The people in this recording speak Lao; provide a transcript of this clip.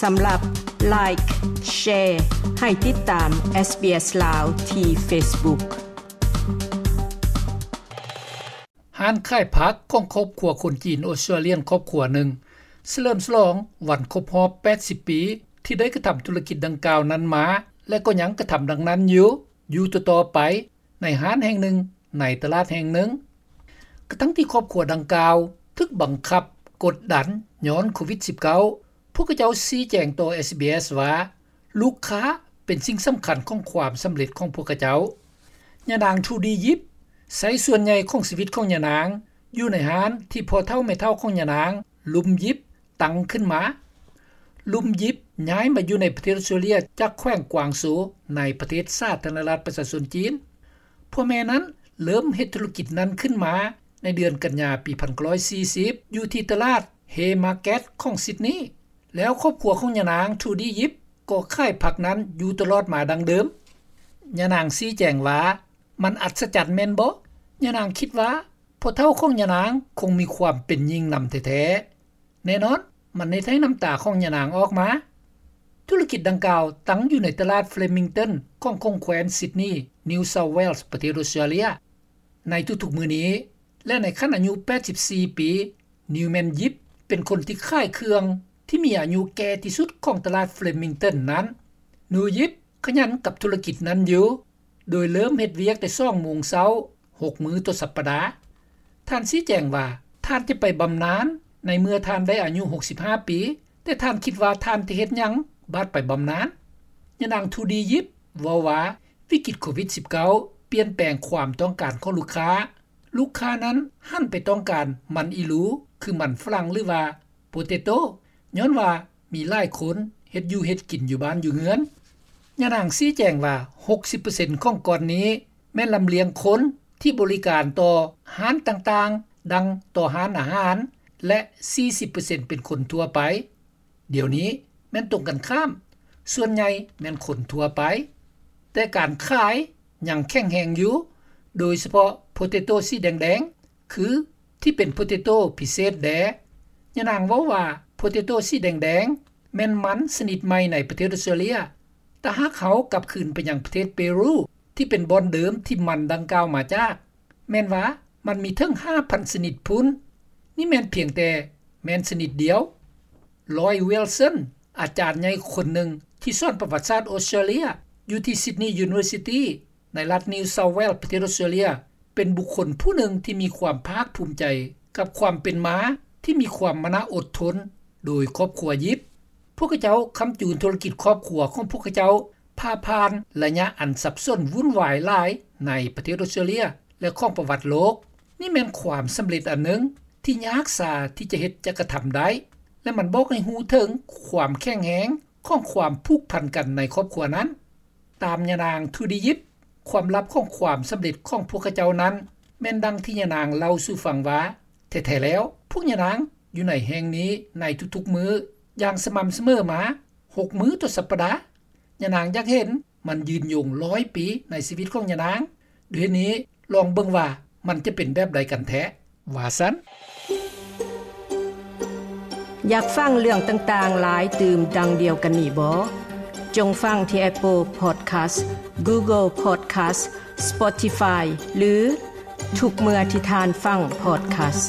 ສຳລັບ Like, Share ໃຫ້ຕິດຕາມ SBS ລາວ ທີ່ Facebook. ຮ້ານຂາຍຜັກຂອງຄອບຄົວຄົນຈີນອອສເຕຣເລຍນຄອບຄົວໜຶ່ງ ສະເຫຼີມສະຫຼອງວັນຄົບຮອບ ແປດສິບປີ ທີ່ໄດ້ກະທຳທຸລະກິດດັ່ງກ່າວນັ້ນມາ ແລະ ກໍຍັງກະທຳດັ່ງນັ້ນຢູ່ ຢູ່ຕໍ່ໆໄປ ໃນຮ້ານແຫ່ງໜຶ່ງ ໃນຕະຫຼາດແຫ່ງໜຶ່ງ. ກະທັງທີ່ຄອບຄົວດັ່ງກ່າວ ຖືກບັງຄັບກົດດັນຍ້ອນໂຄວິດ-ສິບເກົ້າ, ພວກເຂົາເຈົ້າຊີ້ແຈງຕໍ່ SBS ວ່າ ລູກຄ້າເປັນສິ່ງສຳຄັນຂອງຄວາມສຳເລັດຂອງພວກເຂົາເຈົ້າ. ຍານາງ Trudy Yip ໃຊ້ສ່ວນໃຫຍ່ຂອງຊີວິດຂອງຍານາງ ຢູ່ໃນຮ້ານທີ່ພໍ່ເຖົ້າແມ່ເຖົ້າຂອງຍານາງ ລຸມ Yip ຕັ້ງຂຶ້ນມາ. ລຸມ Yip ຍ້າຍມາຢູ່ໃນປະເທດອອສເຕຣເລຍ ຈາກແຂວງກວາງໂຊ ໃນປະເທດສາທາລະນະລັດປະຊາຊົນຈີນ. ພໍ່ແມ່ນັ້ນເລີ່ມເຮັດທຸລະກິດນັ້ນຂຶ້ນມາໃນເດືອນກັນຍາປີ ໜຶ່ງພັນເກົ້າຮ້ອຍສີ່ສິບ ຢູ່ທີ່ຕະຫຼາດ Haymarket ຂອງ Sydney ແລ້ວຄອບຄົວຂອງຍານາງ Trudy Yip ກໍຂາຍຜັກນັ້ນຢູ່ຕະຫຼອດມາດັ່ງເດີມ. ຍານາງຊີ້ແຈງວ່າ ມັນອັດສະຈັນແມ່ນບໍ່? ຍານາງຄິດວ່າພໍ່ເຖົ້າຂອງຍານາງຄົງມີຄວາມເປັນຍິງນຳແທ້ໆ. ແນ່ນອນ, ມັນເຮັດໃຫ້ນ້ຳຕາຂອງຍານາງອອກມາ. ທຸລະກິດດັ່ງກ່າວຕັ້ງຢູ່ໃນຕະຫຼາດ Flemington ຂອງຂົງແຂວນ Sydney, New South Wales ປະເທດອອສເຕຣເລຍ. ໃນທຸກໆມື້ນີ້ ແລະ ໃນຂັ້ນອາຍຸ ແປດສິບສີ່ປີ, Newman Yip ເປັນຄົນທີ່ຂາຍເຄື່ອງທີ່ມີອາຍຸແກ່ທີ່ສຸດຂອງຕະຫຼາດ Flemington ນັ້ນ. ໜູ Yip ຂະຫຍັນກັບທຸລະກິດນັ້ນຢູ່ ໂດຍເລີ່ມເຮັດວຽກແຕ່ສອງໂມງເຊົ້າ ຫົກມື້ຕໍ່ສັບປະດາ. ທ່ານຊີ້ແຈງວ່າ ທ່ານຈະໄປບຳນານໃນເມື່ອທ່ານໄດ້ອາຍຸ ຫົກສິບຫ້າປີ, ແຕ່ທ່ານຄິດວ່າທ່ານຈະເຮັດຫຍັງບາດໄປບຳນານ? ຍານາງ Trudy Yip ເວົ້າວ່າ ວິກິດໂຄວິດ-ສິບເກົ້າ ປ່ຽນແປງຄວາມຕ້ອງການຂອງລູກຄ້າ. ລູກຄ້ານັ້ນຫັນໄປຕ້ອງການມັນອີລູ ຄືມັນຝຣັ່ງ ຫຼືວ່າ potato ຍ້ອນວ່າມີຫຼາຍຄົນເຮັດຢູ່ເຮັດກິນຢູ່ບ້ານຢູ່ເຮືອນ. ຍານາງຊີ້ແຈງວ່າ ຫົກສິບເປີເຊັນຂອງກ່ອນນີ້ແມ່ນລຳລຽງຄົນທີ່ບໍລິການຕໍ່ຮ້ານຕ່າງໆ ດັ່ງຕໍ່ຮ້ານອາຫານ ແລະ ສີ່ສິບເປີເຊັນເປັນຄົນທົ່ວໄປ. ດຽວນີ້ແມ່ນຕົງກັນຂ້າມ, ສ່ວນໃຫຍ່ແມ່ນຄົນທົ່ວໄປ, ແຕ່ການຂາຍຍັງແຂງແຮງຢູ່, ໂດຍສະເພາະ potato ສີແດງໆ ຄືທີ່ເປັນ potato ພິເສດແດ່. ຍານາງເວົ້າວ່າ potato ສີແດງໆ ແມ່ນມັນຊະນິດໃໝ່ໃນປະເທດອອສເຕຣເລຍ. ຖ້າຫາກເຮົາກັບຄືນໄປຍັງປະເທດເປຣູ ທີ່ເປັນບ່ອນເດີມທີ່ມັນດັ່ງກ່າວມາຈາກ, ແມ່ນວ່າມັນມີເຖິງ ຫ້າພັນຊະນິດພຸ້ນ. ນີ້ແມ່ນພຽງແຕ່ແມ່ນຊະນິດດຽວ. Lloyd Wilson ອາຈານໃຫຍ່ຄົນໜຶ່ງທີ່ສອນປະຫວັດສາດອອສເຕຣເລຍ ຢູ່ທີ່ Sydney University ໃນລັດ New South Wales ປະເທດອອສເຕຣເລຍ ເປັນບຸກຄົນຜູ້ໜຶ່ງທີ່ມີຄວາມພາກພູມໃຈກັບຄວາມເປັນມາທີ່ມີຄວາມມານະອົດທົນໂດຍຄອບຄົວ Yip. ພວກເຂົາເຈົ້າຄ້ຳຈູນທຸລະກິດຄອບຄົວຂອງພວກເຂົາເຈົ້າຜ່າຜ່ານໄລຍະອັນສັບສົນວຸ່ນວາຍຫຼາຍໃນປະເທດອອສເຕຣເລຍ ແລະ ຂອງປະຫວັດໂລກ. ນີ້ແມ່ນຄວາມສຳເລັດອັນໜຶ່ງທີ່ຍາກຊາທີ່ຈະເຮັດຈະກະທຳໄດ້ ແລະ ມັນບອກໃຫ້ຮູ້ເຖິງຄວາມແຂງແຮງຂອງຄວາມຜູກພັນກັນໃນຄອບຄົວນັ້ນ. ຕາມຍານາງ Trudy Yip, ຄວາມລັບຂອງຄວາມສຳເລັດຂອງພວກເຂົາເຈົ້ານັ້ນ ແມ່ນດັ່ງທີ່ຍານາງເລົ່າສູ່ຟັງວ່າ ແທ້ໆແລ້ວ ພວກຍານາງຢູ່ໃນແຫ່ງນີ້ໃນທຸກໆມື້ຢ່າງສະໝ່ຳສະເໝີມາ ຫົກມື້ຕໍ່ສັບປະດາ. ຍານາງຢາກເຫັນມັນຍືນຍົງຮ້ອຍປີໃນຊີວິດຂອງຍານາງ. ດ້ວຍເຫດນີ້ ລອງເບິ່ງວ່າມັນຈະເປັນແບບໃດກັນແທ້, ວ່າຊັ້ນ. ຢາກຟັງເລື່ອງຕ່າງໆຫຼາຍຕື່ມດັ່ງດຽວກັນນີ້ບໍ? ຈົ່ງຟັງທີ່ Apple Podcast, Google Podcast, Spotify ຫຼື ທຸກເມື່ອທີ່ທ່ານຟັງ podcast.